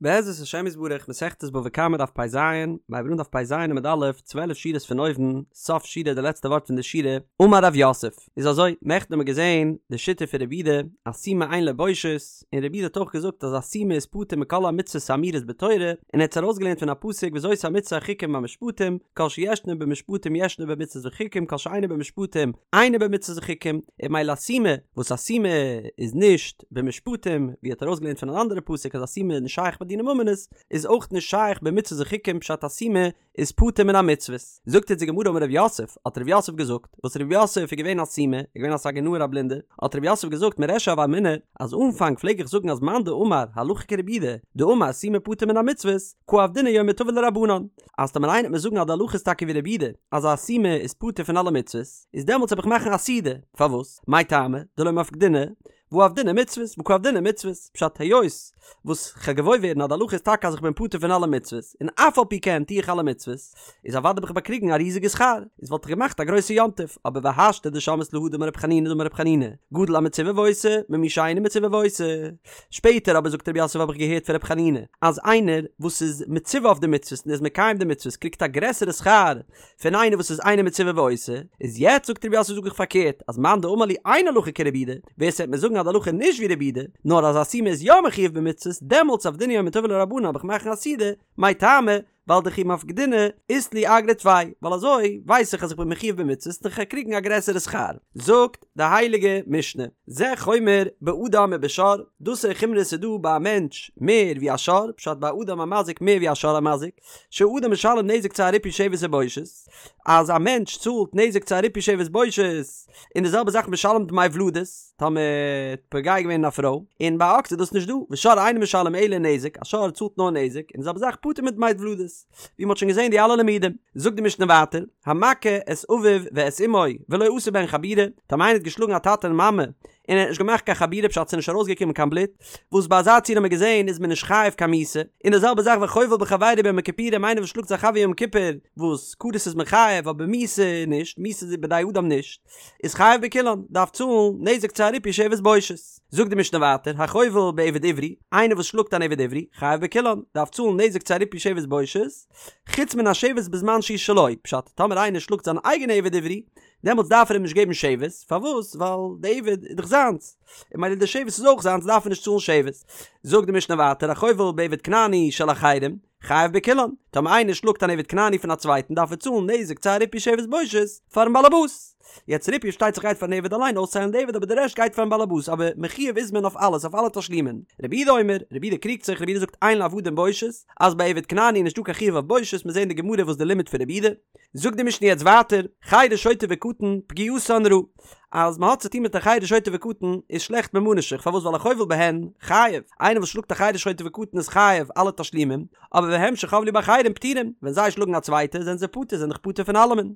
בעזרת השם יתברך מסכת בבא קמא דף פ"ז, מיר הייבן אן דף פ"ז עמוד א', 12 שורות פון אויבן, סוף שורה די לעצטע ווארט פון די שורה, אמר רב יוסף, איז אזוי, נעכטן האבן מיר געזען די שיטה פון רבי יהודה, אז סומא אין לו בושת, און רבי יהודה האט אויך געזאגט אז א סומא איז פטור מכל המצוות האמורות בתורה, און ער האט עס ארויסגעלערנט פון א פסוק וזאת המצוה החוקים והמשפטים, כל שישנו במשפטים ישנו במצוות וחוקים כל שאינו במשפטים אינו במצוות וחוקים, און ממילא א סומא, וואס א סומא איז נישט במשפטים, ווי ער האט ארויסגעלערנט פון אן אנדערע פסוק אז א סומא איז נישט שייך ביי דיני ממונות, איז אויך נישט שייך במצוות וחוקים פשט א סומא איז פטור מן המצוות. זאגט אונז די גמרא אמר רב יוסף, האט רב יוסף געזאגט, וואס רב יוסף איז געווען א סומא, איז געווען א סגי נהור א בלינדער, האט רב יוסף געזאגט מרישא הוה אמינא, אז אנפאנג פלעג איך זאגן אז מאן דאמר הלכה כרבי יהודה, דאמר סומא פטור מן המצוות, קא עבדינן יומא טבא לרבנן, אז טאמער איינער וועט מיר זאגן אז די הלכה איז טאקע ווי רבי יהודה, אז א סומא איז פטור פון אלע מצוות, איז דעמאלטס וועל איך מאכן א סעודה, פארוואס? מאי טעמא דלא מפקדינא והא עבדינן מצוות והא קא עבדינן מצוות, פשט היות וואס כ'גיי געוואויר ווערן אז די הלכה איז טאקע אז איך בין פטור פון אלע מצוות, און אף על פי כן טו איך אלע מצוות, איז אוודאי האב איך באקריגן א ריזיגע שכר, איז וואלט איך געמאכט א גרויסע יום טוב, אבער והשתא דשמעית להא דאמר רב חנינא דאמר רב חנינא, גדול המצווה ועושה, ממי שאינו מצווה ועושה. שפעטער אבער זאגט רב יוסף האב איך געהערט פון רב חנינא, אז איינער וואס איז מצווה אויף די מצוות און איז מקיים די מצוות קריגט א גרעסערע שכר פון איינער וואס איז אינו מצווה ועושה, איז יעצט זאגט רב יוסף זאג איך פארקערט, אז מאן דאמר לי אין הלכה כרבי יהודה, ווער ס'וועט מיר זאגן אז די הלכה איז נישט ווי רבי יהודה, נאר אז א סומא איז יא מחויב במצוות, דעמאלטס עבדינן יומא טבא לרבנן האב איך מאכן א סעודה, מאי טעמא, ווייל דכי מפקדינא אית לי אגרא טפי, ווייל אזוי ווייס איך אז איך בין מחויב במצוות און כ'גיי קריגן א גרעסערע שכר. זאגט די הייליגע משנה, זה חומר באדם ובשור, דאס איז חומרא ס'איז דא ביי א מענטש מער ווי א שור, פשט ביי אדם המזיק מער ווי א שור המזיק, שהאדם משלם נזק צער ריפוי שבת ובושת, אז א מענטש צאלט נזק צער ריפוי שבת בושת, און די זעלבע זאך משלם דמי ולדות, טאמער האט פוגע געווען אין א פרוי, און ביי א אקס איז דאס נישט דא, ושור אינו משלם אלא נזק, א שור צאלט נאר נזק, און די זעלבע זאך פטור מדמי ולדות, ווי מ'האט שוין געזען די אלע לימודים. זאגט די משנה ווייטער, המכה את אביו ואת אמו ולא עשה בהן חבורה, טאמער איינער האט געשלאגן א טאטע און מאמע, און ער האט נישט געמאכט קיין חבורה פשט ס'איז נישט ארויסגעקומען קיין בלוט, וואס ביי אזא ציור האט מען געזען איז מען נישט חייב קיין מיתה, און די זעלבע זאך וחובל בחבירו ביום הכיפורים איינער וואס שלאגט זיין חבר יום כיפור, וואס כרת איז מען חייב אבער מיתה נישט, מיתה איז בידי אדם נישט, איז חייב בכולן, דארף צאלן נזק צער ריפוי שבת בושת. זאגט די משנה ווייטער, החובל בעבד עברי, איינער וואס שלאגט אן עבד עברי, חייב בכולן, דארף צאלן נזק צער ריפוי שבת בושת, חוץ מן השבת בזמן שהוא שלו, פשט, טאמער איינער שלאגט זיין אייגענע עבד עברי, דעמאלטס דארף ער אים נישט געבן שבת, פארוואס? ווייל די עבד איז דאך זיינס, און ממילא די שבת איז אויך זיינס דארף ער נישט צאלן שבת. זאגט די משנה ווייטער החובל בעבד כנעני של אחרים, חייב בכולן, טאמער איינער שלאגט אן עבד כנעני פון א צווייטן דארף ער צאלן נזק צער ריפוי שבת בושת פארן באלעבאס. יעצט ריפוי פארשטייט זיך גייט פארן עבד אליין אויסצוהיילן די עבד אבער די רעשט גייט פארן באלעבאס אבער מחויב איז מען אויף אלעס אויף אלע תשלומין. רבי יהודה אומר, רבי יהודה קריגט זיך, רבי יהודה זאגט אין לעבדים בושת, אז ביי עבד כנעני איז נישטא קיין חיוב אויף בושת, מיר זעהן אין די גמרא וואס די לימוד פון רבי יהודה. זאגט די משנה יעצט ווייטער, חרש שוטה וקטן, פגיעתן רעה, אז מען האט צוטון מיט א חרש שוטה וקטן איז שלעכט ממה נפשך, פארוואס ווייל החובל בהן חייב, איינער וואס שלאגט א חרש שוטה וקטן איז חייב אלע תשלומים, אבער והם שחבלו באחרים פטורים, ווען זיי שלאגן א צווייטע זענען זיי פטור, זענען דאך פטור פון אלעמען.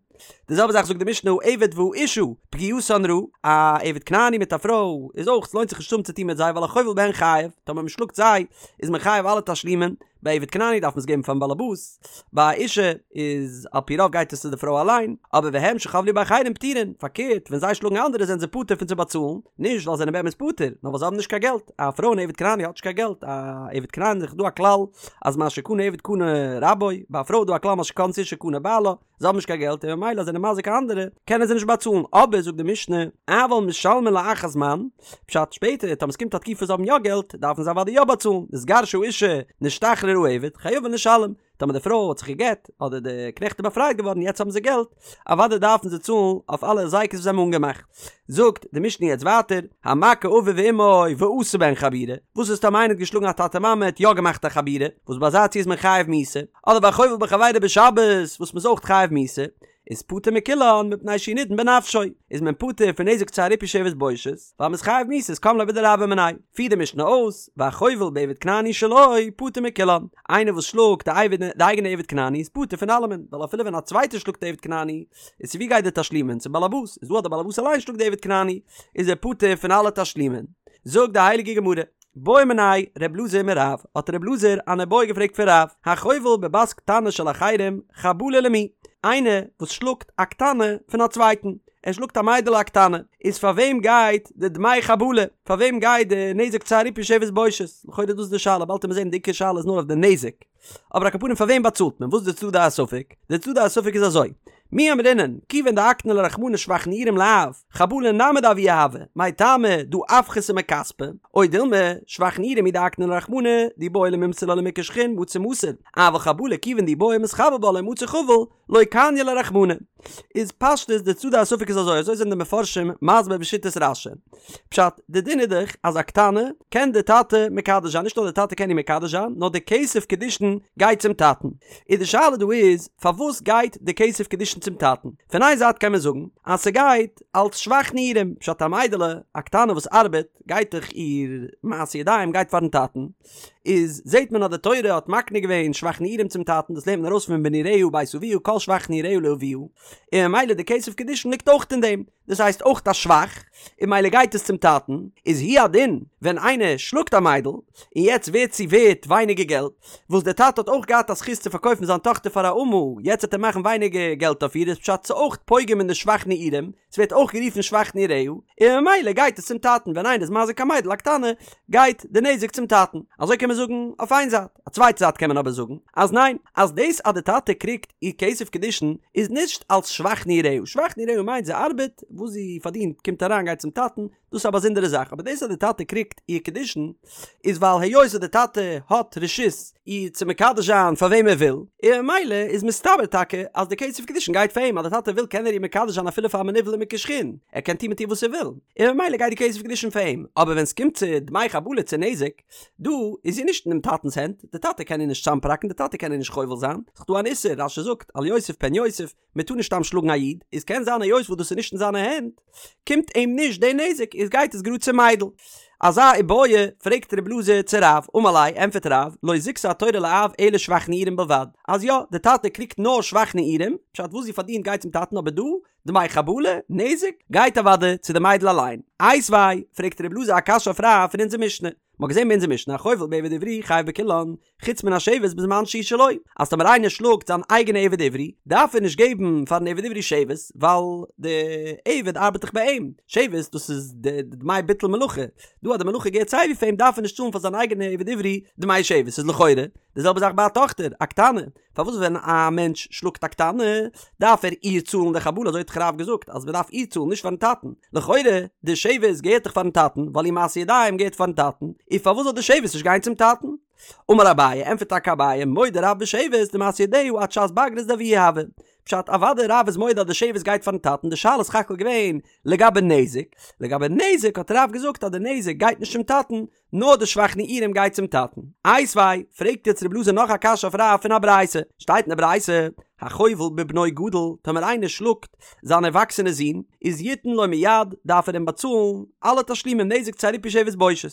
די זעלבע זאך זאגט די משנה העבד והאשה, פגיעתן רעה, א עבד כנעני מיט א פרוי איז אויך, ס'לוינט זיך נישט צו האבן צוטון מיט זיי ווייל החובל בהן חייב, טאמער מען שלאגט זיי איז מען חייב אלע תשלומים, ביי עבד כנעני דארף מען עס געבן פארן באלעבאס, ביי א אשה איז על פי רוב גייט עס צו די פרוי אליין, אבער והם שחבלו באחרים פטורין, פארקערט ווען זיי שלאגן אנדערע זענען זיי פטור פון צו באצאלן, נישט ווייל זיי זענען באמת פטור, נאר ווייל זיי האבן נישט קיין געלט, א פרוי אן עבד כנעני האט נישט קיין געלט, א עבד כנעני איז דא א כלל אז מה שקנה עבד קנה רבו, ביי א פרוי איז דא א כלל מה שקנתה אשה קנה בעלה, זיי האבן נישט קיין געלט און ממילא זענען מזיק אנדערע, קענען זיי נישט באצאלן, אבער זאגט די משנה, אבל משלמין לאחר זמן, פשט שפעטער טאמער ס'קומט א תקופה זיי האבן יא געלט, דארפן זיי אוודאי יא באצאלן, נתגרשה האשה, נשתחרר העבד, חייבין לשלם, טאמער די פרוי האט זיך גע'גט, אדער די קנעכט איז באפרייט געווארן יעצט האבן זיי געלט, אוודאי דארפן זיי צאלן אויף אלע הזיקות וואס זיי האבן אנגעמאכט. זאגט די משנה יעצט ווייטער, המכה אביו ואמו ועשה בהן חבורה, וואס איז טאמער איינער האט געשלאגן א טאטע מאמע האט יא געמאכט א חבורה, וואס ביי אזא ציור איז מען חייב מיתה, אדער והחובל בחבירו בשבת וואס מ'איז אויך חייב מיתה, איז פטור מכולן מפני שהוא נידון בנפשו, איז מען פטור פון נזק צער ריפוי שבת בושת, ווייל מ'איז חייב מיתה איז קם ליה בדרבה מיניה. פירט די משנה אויס, והחובל בעבד כנעני שלו פטור מכולן, איינער וואס שלאגט די אייגענע עבד כנעני איז פטור פון אלעמען, ווייל אפילו ווען א צווייטער שלאגט די עבד כנעני, איז צו ווי גייט די תשלומין? צום באלעבאס, איז דא אז די באלעבאס אליין שלאגט די עבד כנעני, איז ער פטור פון אלע תשלומין. זאגט די הייליגע גמרא. בעא מיניה ר' אלעזר מרב, האט ר' אלעזר אן איבעיא געפרעגט פון רב, החובל בבת קטנה של אחרים, חבלה למי? איינער וואס שלאגט א קטנה פון א צווייטן, ער שלאגט א מיידעלע א קטנה, איז פאר וועם גייט די דמי חבלה? פאר וועם גייט די נזק צער ריפוי שבת בושת? לכאורה דאס איז די שאלה, באלד וועט מען זען די עיקר שאלה איז נאר אויף די נזק. אבער על כל פנים פאר וועם באצאלט מען? וואס איז די צדדי הספק? די צדדי הספק איז אזוי, מי אמרינן, כיוון דאקני ליה רחמנא שבח נעורים לאב, חבלה נמי דאבוה הוי, מאי טעמא דהא אפחתיה מכספא, או דילמא, שבח נעורים הוא דאקני ליה רחמנא, דאי בעי למימסר לה למוכר שחין מצי מסר, אבל חבלה כיוון דאי בעי מתחבל בה לא מצי חביל, לא קני ליה רחמנא. איז פשטות די צדדי הספק איז אזוי, אזוי זענען די מפרשים מסביר בשיטת רש"י. פשט, די דין איז דאך אז א קטנה קען די טאטע מקדש זיין, נישט נאר די טאטע קען איר מקדש זיין, נאר די כסף קידושין גייט צום טאטן. איז די שאלה דא איז, פארוואס גייט די כסף קידושין צום טאטן? פון איין זייט קען מען זאגן אז ס'גייט אלס שבח נעורים, פשט א מיידעלע א קטנה וואס ארבעט גייט דאך איר מעשה ידיים גייט פארן טאטן, איז זעהט מען אז די תורה האט מקנה געווען שבח נעורים צום טאטן, דאס לערנט מען ארויס פון בנעוריה בית אביה כל שבח נעוריה לאביה, און ממילא די כסף קידושין ליגט אויך אין דעם, דאס הייסט אויך א שבח, און ממילא גייט עס צום טאטן, איז הוא הדין ווען איינער שלאגט א מיידל, און יעצט ווערט זי ווערט ווייניגער געלט, וואס דער טאטע האט אויך געהאט א זכות צו פארקויפן זיין טאכטער פאר א אמה, יעצט וועט ער מאכן ווייניגער געלט אויף איר, איז פשט ס'אויך פוגם אין די שבח נעורים, ס'ווערט אויך גערופן שבח נעוריה, און ממילא גייט עס צום טאטן, ווען איינער איז מזיק א מיידל א קטנה, גייט די נזק צום טאטן. אזוי קען מען זאגן אויף איין זייט. א צווייטע זייט קען מען אבער זאגן, אז ניין, אז דאס אז די טאטע קריגט איר כסף קידושין איז נישט אלס שבח נעוריה, שבח נעוריה מיינט זי ארבעט, וואס זי פארדינט קומט אריין גייט צום טאטן, דאס איז א באזונדערע זאך, אבער דאס אז די טאטע קריגט איר קידושין איז ווייל היות אז די טאטע האט רשות איר צו מקדש זיין פאר וועם ער וויל, און ממילא איז מסתבר טאקע אז די כסף קידושין גייט פאר אים, אז די טאטע וויל קען ער איר מקדש זיין אפילו פאר א מנוול ומוכה שחין, ער קען טון מיט איר וואס ער וויל, און ממילא גייט די כסף קידושין פאר אים, אבער ווען סקומט צו דמי חבלה צו נזק, דא איז זי נישט אינעם טאטנס הענט, די טאטע קען איר נישט צאמפראקן, די טאטע קען איר נישט חובל זיין, ס'איז דא אן איסור, רש"י זאגט, אל יוסיף פן יוסיף, מען טאר נישט סתם שלאגן א איד, איז קען זיין היות וואס דאס איז נישט אין זיינע הענט, קומט אים נישט די נזק, איז גייט עס גראד צום מיידל. אזא איבעיא פרעגט רב אלעזר צו רב, אמר ליה, ענטפערט רב, לא זיכתה התורה לאב אלא שבח נעורים בלבד, אז יא, די טאטע קריגט נאר שבח נעורים, פשט וואס זי פארדינט גייט צום טאטן אבער דא, דמי חבלה, נזק, גייט אוודאי צו די מיידל אליין. איתיביה, פרעגט רב אלעזר א קשיא אויף רב פון אונזער משנה, מ'האט געזען ביי אונזער משנה החובל בעבד עברי חייב בכולן, חוץ מן השבת בזמן שהוא שלו, אז טאמער איינער שלאגט זיין אייגענע עבד עברי, דארף ער נישט געבן פארן עבד עברי שבת, ווייל די עבד ארבעט דאך ביי אים, שבת דאס איז די דמי ביטול מלאכה, דא אז די מלאכה געהערט סייווי פאר אים דארף ער נישט צאלן פאר זיין אייגענע עבד עברי דמי שבת, איז לכאורה די זעלבע זאך ביי א טאכטער, א קטנה, פארוואס ווען א מענטש שלאגט א קטנה דארף ער איר צאלן די חבלה אזוי האט דאך רב געזאגט אז מען דארף איר צאלן נישט פארן טאטן, לכאורה די שבת געהערט דאך פארן טאטן ווייל איר מעשה ידיים געהערט פארן טאטן, איז פארוואס זאל די שבת נישט גיין צום טאטן? אמר אביי, ענטפערט טאקע אביי, מודה רב בשבת דמעשה ידיה עד שעת בגרות דאבוה הוי. פשט, אוודאי רב איז מודה אז די שבת גייט פארן טאטן, די שאלה איז סך הכל געווען לגבי נזק, לגבי נזק האט רב געזאגט אז די נזק גייט נישט צום טאטן, נאר די שבח נעורים גייט צום טאטן. איתיביה, פרעגט יעצט רב אלעזר נאך א קשיא אויף רב פון א ברייתא. שטייט אין די ברייתא, החובל בבנו גדול, טאמער איינער שלאגט זיין ערוואקסענע זון, איז יתן לו מיד, דארף ער אים באצאלן אלע תשלומים נזק צער ריפוי שבת בושת.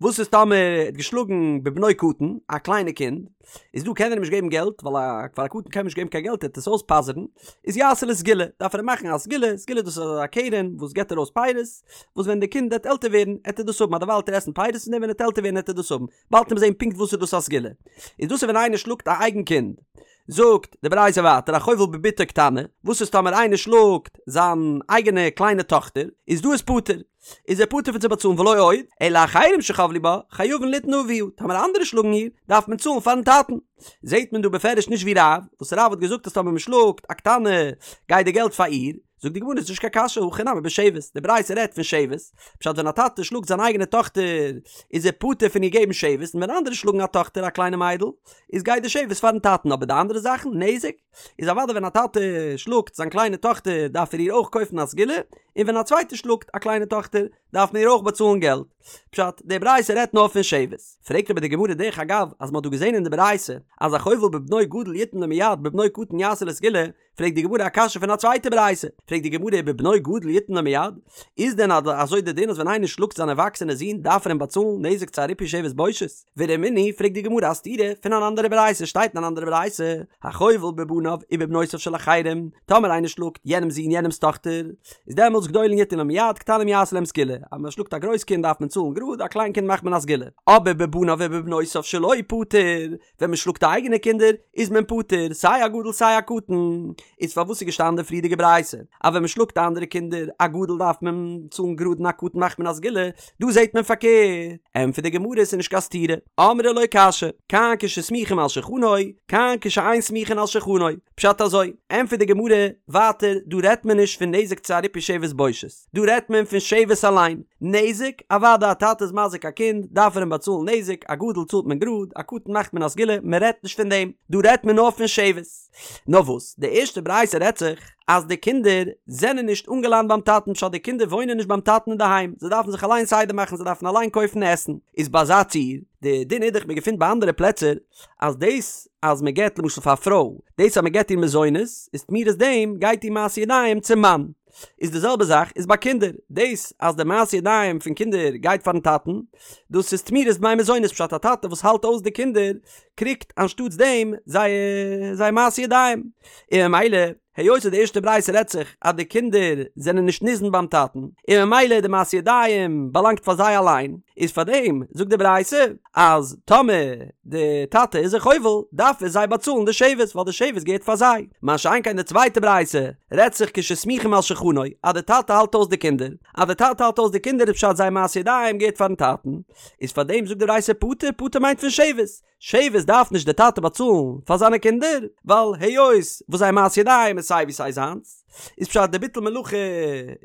וואס איז טאמער ער האט געשלאגן בבנו קטן, א קליינע קינד, איז דא קען ער אים נישט געבן געלט, ווייל א פאר א קטן קען מען נישט געבן קיין געלט ער וועט עס אויספאזערן, איז יעשה לו סגולה, דארף ער אים מאכן א סגולה, סגולה דאס איז א קרן וואס געבט ארויס פירות, וואס ווען די קינד וועט עלטער ווערן עט ער דאס האבן, אדערווייל עט ער עסן פירות פון דעם ווען ער וועט עלטער ווערן עט ער דאס האבן, באלד וועט מען זען פונקט וואס איז דאס א סגולה. איז דאס איז ווען איינער שלאגט א אייגן קינד. זאגט די ברייתא ווייטער החובל בבתו קטנה, וואס איז טאמער איינער שלאגט זיין אייגענע קליינע טאכטער, איז דא איז פטור, איז ער פטור פון צו באצאלן ולא עוד, אלא אחרים שחבלו בה, חייבין ליתן לאביה, טאמער אנדערע שלאגן איר, דארף מען צאלן פארן טאטן. זעט מען דא בפירוש נישט ווי רב, וואס רב האט געזאגט אז טאמער מען שלאגט א קטנה גייט די געלט פאר איר, זאגט די גמרא ס'איז נישט קיין קשיא הכא נמי בשבת, די ברייתא רעדט פון שבת, פשט ווען א טאטע שלאגט זיין אייגענע טאכטער איז ער פטור פון איר געבן שבת, און ווען אנדערע שלאגן א טאכטער א קליינע מיידל איז גייט די שבת פארן טאטן אבער די אנדערע זאכן, נזק, איז אוודאי ווען א טאטע שלאגט זיין קליינע טאכטער דארף ער איר אויך קויפן א סגולה, און ווען א צווייטער שלאגט א קליינע טאכטער דארף מען איר אויך באצאלן געלט. פשט, די ברייתא רעדט נאר פון שבת. פרעגט אבער די גמרא דרך אגב אז מען האט דא געזען אין די ברייתא אז החובל בבנו גדול יתן לו מיד בבנו קטן יעשה לו סגולה, פרעגט די גמרא א קשיא פון א צווייטע ברייתא, פרעגט די גמרא ובבנו גדול יתן לו מיד, איז דען אזוי די דין אז ווען איינער שלאגט זיין ערוואקסענע זון דארף ער אים באצאלן נזק צער ריפוי שבת בושת? ורמינהי, פרעגט די גמרא א סתירה פון אן אנדערע ברייתא, שטייט אין אן אנדערע ברייתא, החובל בבניו ובבנותיו של אחרים, טאמער איינער שלאגט יענעמ'ס זון יענעמ'ס טאכטער, איז דעמאלטס וואס גדולים יתנו להם מיד קטנים יעשו להם סגולה, אז מען שלאגט א גרויס קינד דארף מען צאלן גראד, א קליין קינד מאכט מען א סגולה. אבער בבניו ובבנותיו שלו פטור, ווען מען שלאגט די אייגענע קינדער איז מען פטור, סיי א גדול סיי א קטן. איז פארוואס איז געשטאנען די פריערדיגע ברייתא אז ווען מען שלאגט אנדערע קינדער א גדול דארף מען צאלן גראד און א קטן מאכט מען א סגולה, דא זעט מען פארקערט. ענטפערט די גמרא עס איז נישט קיין סתירה, אמרי לא קשיא, כאן כשסמוכין על שולחנו, כאן כשאין סמוכין על שולחנו. פשט אזוי, ענטפערט די גמרא ווייטער, דא רעדט מען נישט פון נזק צו א ריפוי שבת בושת, דא רעדט מען פון שבת אליין, נזק, אוודאי א טאטע איז מזיק א קינד, דארף ער אים באצאלן נזק, א גדול צאלט מען גראד, א קטן מאכט מען א סגולה, מען רעדט נישט פון דעם, דא רעדט מען נאר פון שבת. נאר וואס, די ערשטע ברייתא רעדט זיך אז די קינדער זענען נישט אנגעלאנט ביים טאטן, פשט די קינדער וואוינען נישט ביים טאטן אינדערהיים, זיי דארפן זיך אליין סדר מאכן, זיי דארפן אליין קויפן עסן, איז ביי אזא ציור, די דין איז דאך מען געפינט ביי אנדערע פלעצער, אז דאס אז מען געבט למשל פאר א פרוי, דאס אז מען געבט איר מזונות, איז תמורת דעם גייט איר מעשי ידיים צום מאן. איז די זעלבע זאך איז ביי קינדער, דאס אז די מעשי ידיים פון קינדער גייט פארן טאטן, דאס איז תמורת דמי מזונות פשט א טאטע וואס האלט אויס די קינדער קריגט אנשטאטס דעם זייער זייער מעשי ידיים, און ממילא היות אז די ערשטע ברייתא רעדט זיך אז די קינדער זענען נישט ניזון ביים טאטן, און ממילא די מעשי ידיים באלאנגט פאר זיי אליין, איז פאר דעם זאגט די ברייתא אז טאמער די טאטע איז זיי חובל דארף ער זיי באצאלן די שבת ווייל די שבת געהערט פאר זיי, מה שאין כן די צווייטע ברייתא רעדט זיך כשסמוכים על שולחנו אז די טאטע האלט אויס די קינדער, אז די טאטע האלט אויס די קינדער איז פשט זייער מעשי ידיים געהערט פארן טאטן, איז פאר דעם זאגט די ברייתא פטור, פטור מיינט פון שבת, שבת דארף נישט די טאטע באצאלן פאר זיינע קינדער, ווייל היות וואס זייער מעשי ידיים איז סיי ווי סיי זיינס, איז פשט די ביטול מלאכה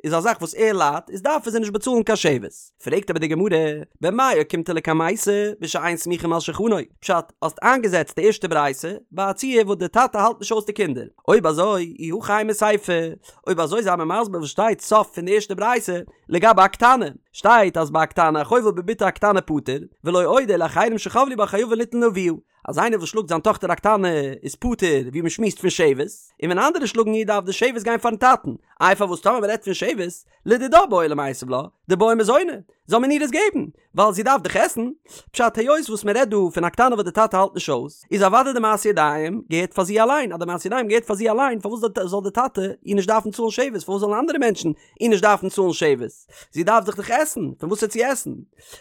איז א זאך וואס ער ליידט, איז דארף ער זיי נישט באצאלן קיין שבת. פרעגט אבער די גמרא, במאי אוקימתא לקמייתא בשאין סמוכים על שולחנו, פשט, האסט איינגעזעצט די ערשטע ברייתא ביי א ציור וואס די טאטע האלט נישט אויס די קינדער, אויב אזוי אי הכי אימא סיפא, אויב אזוי זיי מיר מסביר וואס שטייט סוף פון די ערשטע ברייתא לגבי א קטנה, שטייט אז ביי א קטנה החובל בבתו הקטנה פטור, ולא עוד אלא אחרים שחבלו בה חייבין ליתן לאביה, אז איינער וואס שלאגט זיין טאכטער א קטנה איז פטור ווי מען שמועסט פון שבת, און ווען אנדערע שלאגן איר דארף די שבת גיין פארן טאטן, איי פארוואס טאמער מען רעדט פון שבת, לדידה בעי למיתב לה, דבעיא מזוני, זאל מען איר עס געבן, ווייל זי דארף דאך עסן, פשט היות וואס מען רעדט דא פון א קטנה וואס די טאטע האלט נישט אויס, איז אוודאי די מעשי ידיים געהערט פאר זי אליין, אז די מעשי ידיים געהערט פאר זי אליין פארוואס זאל די טאטע איר נישט דארפן צאלן שבת, פארוואס זאלן אנדערע מענטשן איר נישט דארפן צאלן שבת, זי דארף זיך דאך עסן, פון וואס וועט זי עסן?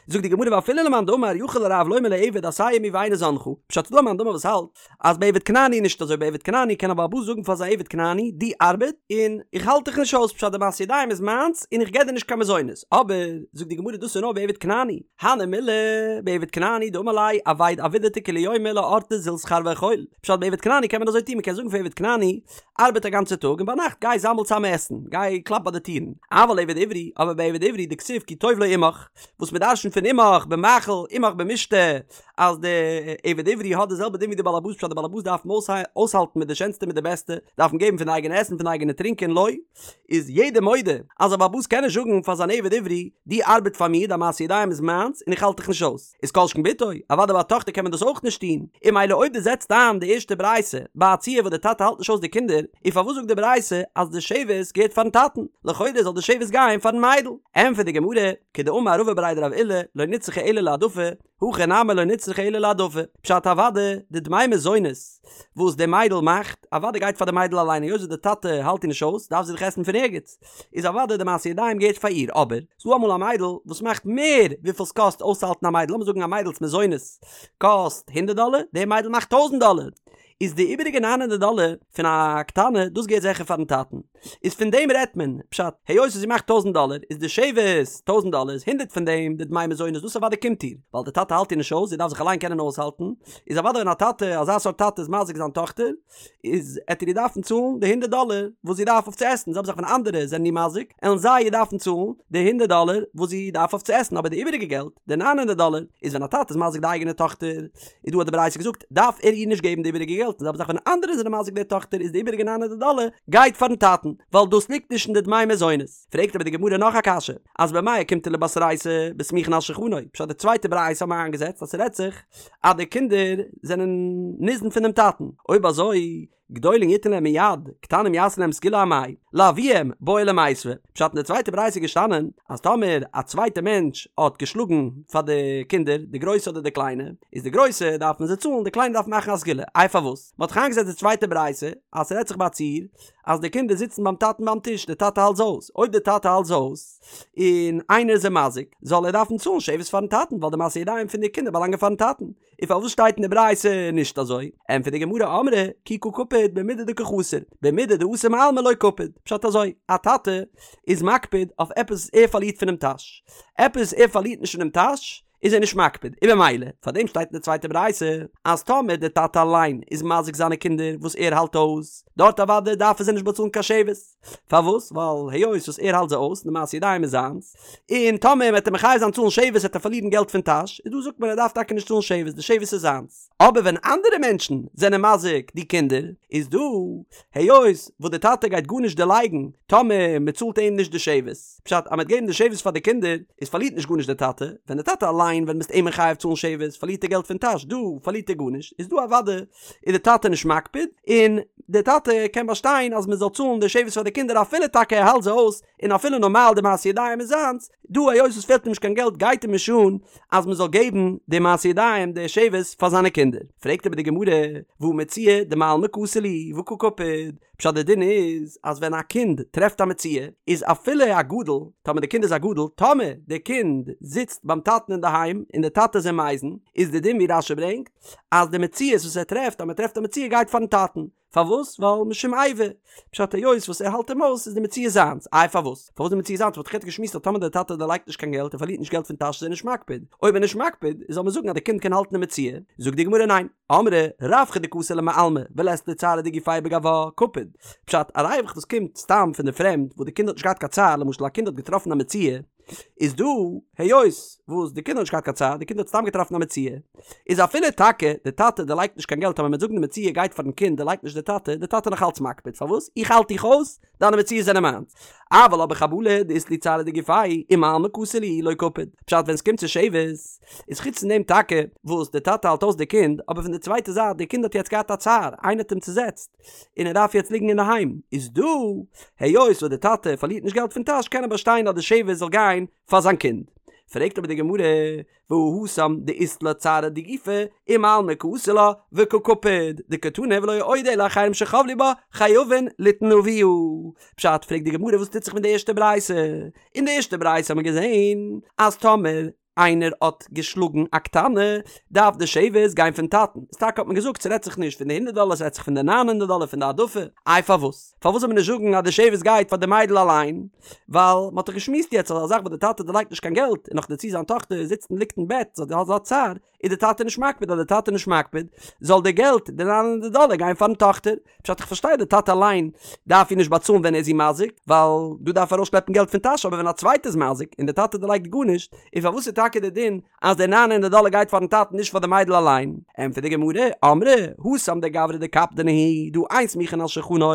זאגט די גמרא ואפילו למאן דאמר יכול הרב לומר לעבד עשה עמי ואיני זנך, פשט ס'דא א מאן דאמר וואס האלט אז ביי עבד כנעני איז נישט אזוי ביי עבד כנעני קען א בעל הבית זאגן פאר זיין עבד כנעני דו ארבעט און איך האלט דיך נישט אויס פשט די מעשי ידיים איז מיינס און איך געב דיר נישט קיין מזונות אבער זאגט די גמרא דאס איז נאר ביי עבד כנעני הני מילי בעבד כנעני דאמר ליה עביד עבידתא כולי יומא לאורתא זיל שכר ואכול פשט ביי עבד כנעני קען מען אזוי טון מען קען זאגן פאר עבד כנעני ארבעט א גאנצע טאג און ביינאכט גיי זאמל צאם עסן, גיי קלאפ ביי די טירן. אבל עבד עברי, אבער ביי עבד עברי דכתיב כי טוב לו עמך, וואס מען דרשנ'ט פון עמך במאכל עמך במשתה, אז די עבד עברי האט די זעלבע דין ווי די בעל הבית פשט די בעל הבית דארף אים אויסהאלטן מיט די שענסטע מיט די בעסטע, דארף אים געבן פון די אייגענע עסן פון די אייגענע טרינקען לא, איז יעדער מודה אז א בעל הבית קען נישט זאגן פאר זיין עבד עברי, דו ארבעט פאר מיר, דיין מעשי ידיים איז מיינס און איך האלט דיך נישט אויס. איז כל שכן בתו, אוודאי ביי א טאכטער קען מען דאס אויך נישט טון, און ממילא אויב דו זעצט איין די ערשטע ברייתא ביי א ציור וואס די טאטע האלט נישט אויס די קינדער, איז פארוואס זאגט די ברייתא אז די שבת געהערט פארן טאטן? לכאורה זאל די שבת גיין פארן מיידל. ענטפערט די גמרא, כדאמר רבא בריה דרב עולא, לא נצרכה אלא להעדפה, הכא נמי לא נצרכה אלא להעדפה, פשט אוודאי די דמי מזונות וואס די מיידל מאכט, אוודאי גייט פאר די מיידל אליין היות וואס די טאטע האלט איר נישט אויס דארף זי דאך עסן פון ערגעץ, איז אוודאי די מעשי ידיים געהערט פאר איר, אבער ס'דא אמאל א מיידל וואס מאכט מער וויפיל ס'קאסט אויסצוהאלטן א מיידל, לאמיר זאגן א מיידל'ס מזונות קאסט הונדערט דאלער, די מיידל מאכט טויזנט דאלער, איז די איבעריגע ניין הונדערט דאלער פון א קטנה, דאס געהערט זיכער פארן טאטן, איז פון דעם רעדט מען, פשט, היות וואס זי מאכט טויזנט דאלער, איז די שבת טויזנט דאלער איז הונדערט פון דעם די דמי מזונות דאס אוודאי קומט איר, ווייל די טאטע האלט איר נישט אויס, זי דארף זיך אליין קענען אויסהאלטן, איז אוודאי ווען א טאטע, אזא סארט טאטע איז מזיק זיין טאכטער, איז עט ער איר דארפן צאלן די הונדערט דאלער וואס זי דארף אויף צו עסן, זעלבע זאך ווען אנדערע זענען איר מזיק, עלן זיי איר דארפן צאלן די הונדערט דאלער וואס זי דארף אויף צו עסן, אבער די איבעריגע געלט, די ניין הונדערט דאלער, איז ווען א טאטע איז מזיק די אייגענע טאכטער, איז דא האט די ברייתא געזאגט, דארף ער איר נישט געבן די איבעריגע געלט, און זעלבע זאך ווען אנדערע זענען מזיק די טאכטער איז די איבעריגע ניין הונדערט דאלער גייט פארן טאטן, ווייל דאס ליגט נישט אין די דמי מזונות. פרעגט אבער די גמרא נאך א קשיא, אז במאי אוקימתא לבתרייתא בסמוכין על שולחנו, פשט די צווייטע ברייתא האט מען איינגעזעצט אז ס'רעדט זיך אז די קינדער זענען ניזון פונעם טאטן, אויב אזוי. גדולים יתן להם מיד, קטנים יעשו להם סגולה אמאי, לאביהם בעי למיתבה. פשט אין די צווייטע ברייתא איז געשטאנען אז טאמער א צווייטע מענטש האט געשלאגן פאר די קינדער, די גרויסע אדער די קליינע, איז די גרויסע דארף מען זיי צאלן, די קליינע דארף מען מאכן א סגולה. איי פארוואס? מען האט דאך איינגעזעצט די צווייטע ברייתא אז ס'רעדט זיך ביי א ציור אז די קינדער זיצן ביים טאטן ביים טיש, די טאטע האלט זיי אויס, אויב די טאטע האלט זיי אויס און איינער איז זיי מזיק, זאל ער דארפן צאלן שבת פארן טאטן, ווייל די מעשי ידיים פון די קינדער באלאנגען פארן טאטן. און פארוואס שטייט אין די ברייתא נישט אזוי? ענטפערט די גמרא אמרי כי קא קפיד במידי דקא חסר, במידי דאתי מעלמא לא קפיד, פשט אזוי, א טאטע איז מקפיד אויף עפעס וואס ער פארלירט פונעם טאש, עפעס וואס ער פארלירט נישט פונעם טאש איז ער נישט מקפיד, און במילא פאר דעם שטייט אין די צווייטע ברייתא אז טאמער די טאטע אליין איז מזיק זיינע קינדער וואס ער האלט אויס, דארט אוודאי דארף ער זיי נישט באצאלן קיין שבת. פארוואס? ווייל היות וואס ער האלט זיי אויס, די מעשי ידיים איז זיינס, און טאמער מ'וועט אים מחייב זיין צאלן שבת וועט ער פארלירן געלט פון טאש, איז דא זאגט מען ער דארף טאקע נישט צאלן שבת, די שבת איז זיינס. אבער ווען אנדערע מענטשן זענען מזיק די קינדער, איז דא היות וואס די טאטע גייט גארנישט דערלייגן טאמער מ'צאלט אים נישט די שבת, פשט אז מ'וועט געבן די שבת פאר די קינדער, איז פארלירט נישט גארנישט די טאטע, ווען די טאטע אליין ווען מ'איז אים מחייב צאלן שבת פארלירט ער געלט פון טאש, דא פארלירט ער גארנישט, איז דא אוודאי איז די טאטע נישט מקפיד, און די טאטע קען באשטיין אז מען זאל צאלן די שבת פאר די קינדער אפילו טאקע ער האלט זיי אויס, און אפילו נארמאל די מעשי ידיים איז זיינס, דא היות עס פעלט אים נישט קיין געלט גייט אים נישט אן אז מען זאל געבן די מעשי ידיים די שבת פאר זיינע קינדער. פרעגט אבער די גמרא, והא מציאה דמעלמא קאתי להו והא קא קפיד, פשט די דין איז אז ווען א קינד טרעפט א מציאה איז אפילו א גדול, טאמער די קינד איז א גדול, טאמער די קינד זיצט ביים טאטן אינדערהיים און די טאטע איז אים מזין, איז די דין ווי רש"י ברענגט, אז די מציאות וואס ער טרעפט אז מען טרעפט א מציאה גייט פארן טאטן, פארוואס? ווייל משום איבה, פשט היות וואס ער האלט אים אויס איז די מציאה זיינס, איי פארוואס? פארוואס די מציאה זיינס? מ'האט דאך יעצט געשמועסט אז טאמער דער טאטע דערלייגט נישט קיין געלט ער פארלירט נישט געלט פון טאש איז ער נישט מקפיד, אויב ער איז נישט מקפיד זאל מען זאגן אז די קינד קען האלטן די מציאה, זאגט די גמרא ניין, אמרי רווחא דקאתי למעלמא ולית ליה צערא דגופיה בגווה, קפיד, פשט א ריווח וואס קומט סתם פון די פרעמד וואס די קינד האט נישט געהאט קיין צער, למשל א קינד האט געטראפן א מציאה, איז דא היות וואס די קינד האט נישט געהאט קיין צער, די קינד האט סתם געטראפן א מציאה, איז אפילו טאקע די טאטע דערלייגט נישט קיין געלט אבער מ'וועט זאגן די מציאה גייט פארן קינד דערלייגט נישט די טאטע, די טאטע נאך אלץ מקפיד, פארוואס? איך האלט דיך אויס, דיינע מציאות זענען מיינס. אבל אבער חבלה דאית להו צערא דגופייהו ומעלמא קאתי להו לא קפיד. פשט ווען סקומט צו שבת איז חוץ פון דעם טאקע וואס די טאטע האלט אויס די קינד, אבער פון די צווייטע זייט די קינד האט יעצט געהאט א צער, איינער האט אים צוזעצט, און ער דארף יעצט ליגן אינדערהיים, איז דא היות וואס די טאטע פארלירט נישט געלט פון טאש קען ער באשטיין אז די שבת זאל גיין פאר זיין קינד. פרעגט אבער די גמרא, והא התם דאית לה צערא דגופיה ומעלמא קאתי לה וקא קפיד דקתני ולא עוד אלא אחרים שחבלו בה חייבין ליתן לאביה. פשט, פרעגט די גמרא וואס טוט זיך מיט די ערשטע ברייתא? אין די ערשטע ברייתא האט מען געזען אז טאמער איינער האט געשלאגן א קטנה, דארף די שבת גיין פון טאטן. איז טאקע האט מען געזאגט ס'רעדט זיך נישט פון די הונדערט דאלער ס'רעדט זיך פון די ניין הונדערט דאלער פון די העדפה. איי פארוואס? פארוואס זאל מען נישט זאגן אז די שבת גייט פאר די מיידל אליין? ווייל מ'האט דאך געשמועסט יעצט אז א זאך וואס די טאטע דערלייגט נישט קיין געלט און נאך דערצו זיין טאכטער זיצט און ליגט אין בעט זי האט אזא צער, איז די טאטע נישט מקפיד אז די טאטע נישט מקפיד זאל די געלט די ניין הונדערט דאלער גיין פארן טאכטער. פשט איך פארשטיי די טאטע אליין דארף איר נישט באצאלן ווען ער איז איר מזיק ווייל דא דארף ער ארויסשלעפן געלט פון טאש אבער ווען א צווייטער איז מזיק און די טאטע דערלייגט גארנישט איז פארוואס איז טאקע די דין אז די ניין הונדערט דאלער גייט פארן טאטן נישט פאר די מיידל אליין? ענטפערט די גמרא אמרי התם דגברא דקפדנא הוא דהא אין סמוכין על שולחנו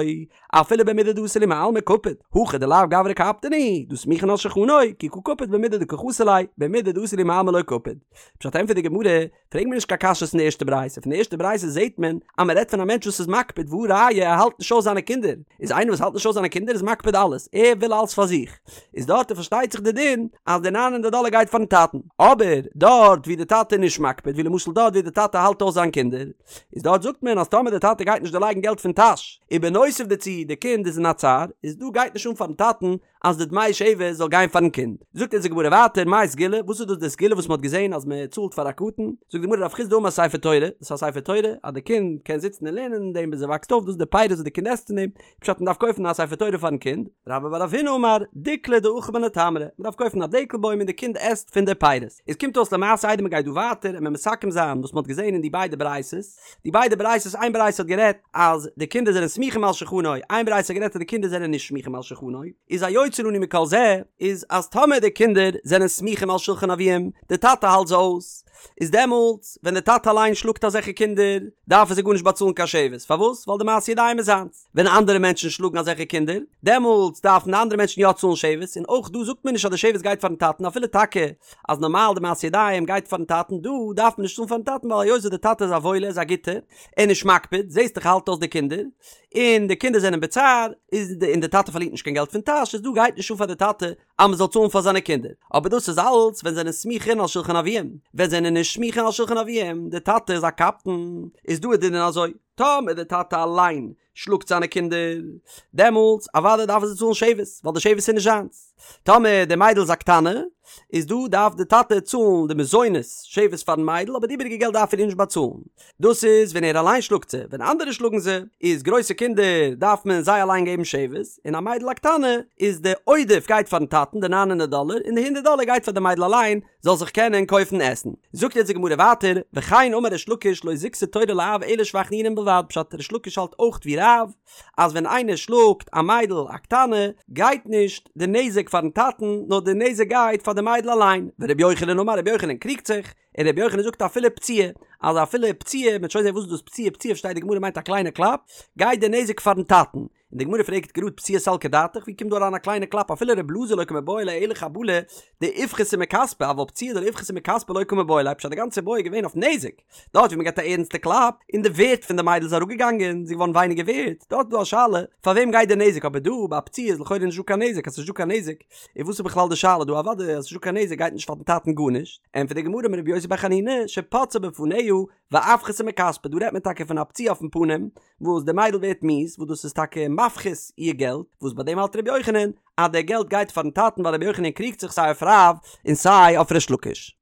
אפילו במידי דאתי להו מעלמא קפיד הכא דלאו גברא קפדנא הוא דהא סמוכין על שולחנו כי קא קפיד במידי דקא חסר ליה במידי דאתי להו מעלמא לא קפיד פשט ענטפערט די גמרא פרעג מיר נישט קיין קשיות פון די ערשטע ברייתא, פון די ערשטע ברייתא זעהט מען אז מען רעדט פון א מענטש וואס איז מקפיד והא ראיה ער האלט נישט אויס זיינע קינדער, איז איינער וואס האלט נישט אויס זיינע קינדער איז מקפיד אלעס, ער וויל אלעס פאר זיך, איז דארט פארשטייט זיך די דין אז די ניין הונדערט דאלער גייט פארן טאטן, אבער דארט ווי די טאטע איז נישט מקפיד ווי למשל דארט ווי די טאטע האלט אויס זיין קינדער, איז דארט זאגט מען אז טאמער די טאטע גייט נישט דערלייגן געלט פון טאש, ובנוסף דערצו די קינד איז אין א צער, איז דא גייט נישט אן פארן טאטן אז די דמי שבת זאל גיין פארן קינד. זאגט אונז די גמרא ווייטער, מאי סגולה, וואס איז דאס די סגולה וואס מען האט געזען אז מען צאלט פאר א קטן? זאגט די גמרא רב חסדא אמר ספר תורה, דאס איז א ספר תורה אז די קינד קען זיצן און לערנען אין דעם ביז ער וואקסט אויף, דאס איז די פירות וואס די קינד עסט פון דעם, פשט מען דארף קויפן א ספר תורה פארן קינד. רבה בר רב הונא אמר, דיקלא דאכיל מיניה תמרי, מען דארף קויפן א דעקל בוים און די קינד עסט פון די פירות. עס קומט אויס למעשה איידער מען גייט דא ווייטער און מען מסכם זיין וואס מען האט געזען אין די ביידע ברייתות, די ביידע ברייתות איין ברייתא האט גערעדט אז די קינדער זענען סמוכים על שולחנו, איין ברייתא האט גערעדט אז די קינדער זענען נישט סמוכים על שולחנו, איז היוצא לנו מכל זה איז אז טאמער די קינדער זענען סמוכים על שולחן אביהם, די טאטע האלט זיי אויס, איז דעמאלטס ווען די טאטע אליין שלאגט אזעלכע קינדער דארף ער זיי גארנישט באצאלן קיין שבת, פארוואס? ווייל די מעשה ידיים איז זיינס. ווען אנדערע מענטשן שלאגן אזעלכע קינדער, דעמאלטס דארפן די אנדערע מענטשן יא צאלן שבת, און אויך דא זאגט מען נישט אז די שבת גייט פארן טאטן אפילו טאקע אז נארמאל די מעשה ידיים גייט פארן טאטן, דא דארף מען נישט צאלן פארן טאטן ווייל היות וואס די טאטע איז א וואוילער איז א גוטער, ער איז נישט מקפיד, זעסט דאך ער האלט אויס די קינדער, און די קינדער זענען בצער, איז די און די טאטע פארלירט נישט קיין געלט פון טאש, איז דא גייט נישט אן פאר די טאטע אז מען זאל צאלן פאר זיינע קינדער, אבער דאס איז אלץ ווען זענען סמוכין על שלחן אביהם, ווען זענען נישט סמוכין על שלחן אביהם, די טאטע איז א קפדן, איז דא איז די דין אזוי, טאמער די טאטע אליין שלאגט זיינע קינדער, דעמאלטס אוודאי דארף ער זיי צאלן שבת, ווייל די שבת איז נישט זיינס. טאמער די מיידל איז א קטנה, איז דא דארף די טאטע צאלן די מזונות שבת פארן מיידל, אבער די איבעריגע געלט דארף ער איר נישט באצאלן. דאס איז ווען ער אליין שלאגט זיי, ווען אנדערע שלאגן זיי, איז גרויסע קינדער דארף מען זיי אליין געבן שבת, און א מיידל א קטנה, איז די עודף גייט פארן טאטן, די ניין הונדערט דאלער, און די הונדערט דאלער גייט פאר די מיידל אליין, זאל זיך קענען קויפן עסן. זאגט יעצט די גמרא ווייטער, וכן אמר ריש לקיש לא זיכתה תורה לאב אלא שבח נעורים בלבד, פשט ריש לקיש האלט אויך ווי רב, אז ווען איינער שלאגט א מיידל א קטנה, גייט נישט די נזק פארן טאטן, נאר די נזק גייט פאר די מיידל אליין, ורבי יוחנן אמר רבי יוחנן קריגט זיך, און רבי יוחנן זאגט אפילו פציעה, אז אפילו פציעה, מ'וועט שוין זען וואס איז דאס פציעה, פציעה פארשטייט די גמרא מיינט א קליינע קלאפ, גייט די נזק פארן טאטן, און די גמרא פרעגט גראד פציעה סלקא דעתך, ווי קומט דא אריין א קליינע קלאפ אפילו ר' אלעזר לא קמיבעיא ליה אלא חבלה דאיפחתה מכספא אבל פציעה דלא איפחתה מכספא לא קמיבעיא ליה פשט די גאנצע בעיא איז געווען אויף נזק, דארט ווי מען געבט א ערנסטע קלאפ און די ווערט פון די מיידל איז אראפגעגאנגען, זי איז געווארן ווייניגער ווערט, דארט איז דא א שאלה פאר וועם גייט די נזק אבער דא ביי א פציעה איז לכאורה נישט דא קיין נזק אז ס'נישט דא קיין נזק איז וואס איז בכלל די שאלה דא אוודאי אז ס'נישט דא קיין נזק גייט נישט פארן טאטן גארנישט, ענטפערט די גמרא אמר רבי יוסי בר חנינא שפצעה בפניה ואפחתה מכספה דא רעדט מען טאקע פון א פציעה אויפן פנים וואס די מיידל ווערט מיאוס וואס דאס איז טאקע מפחית איר געלט, וואס ביי דעם האלט רבי יוחנן אז די געלט גייט פארן טאטן ווייל רבי יוחנן קריגט זיך סיי אויף רב און סיי אויף ריש לקיש.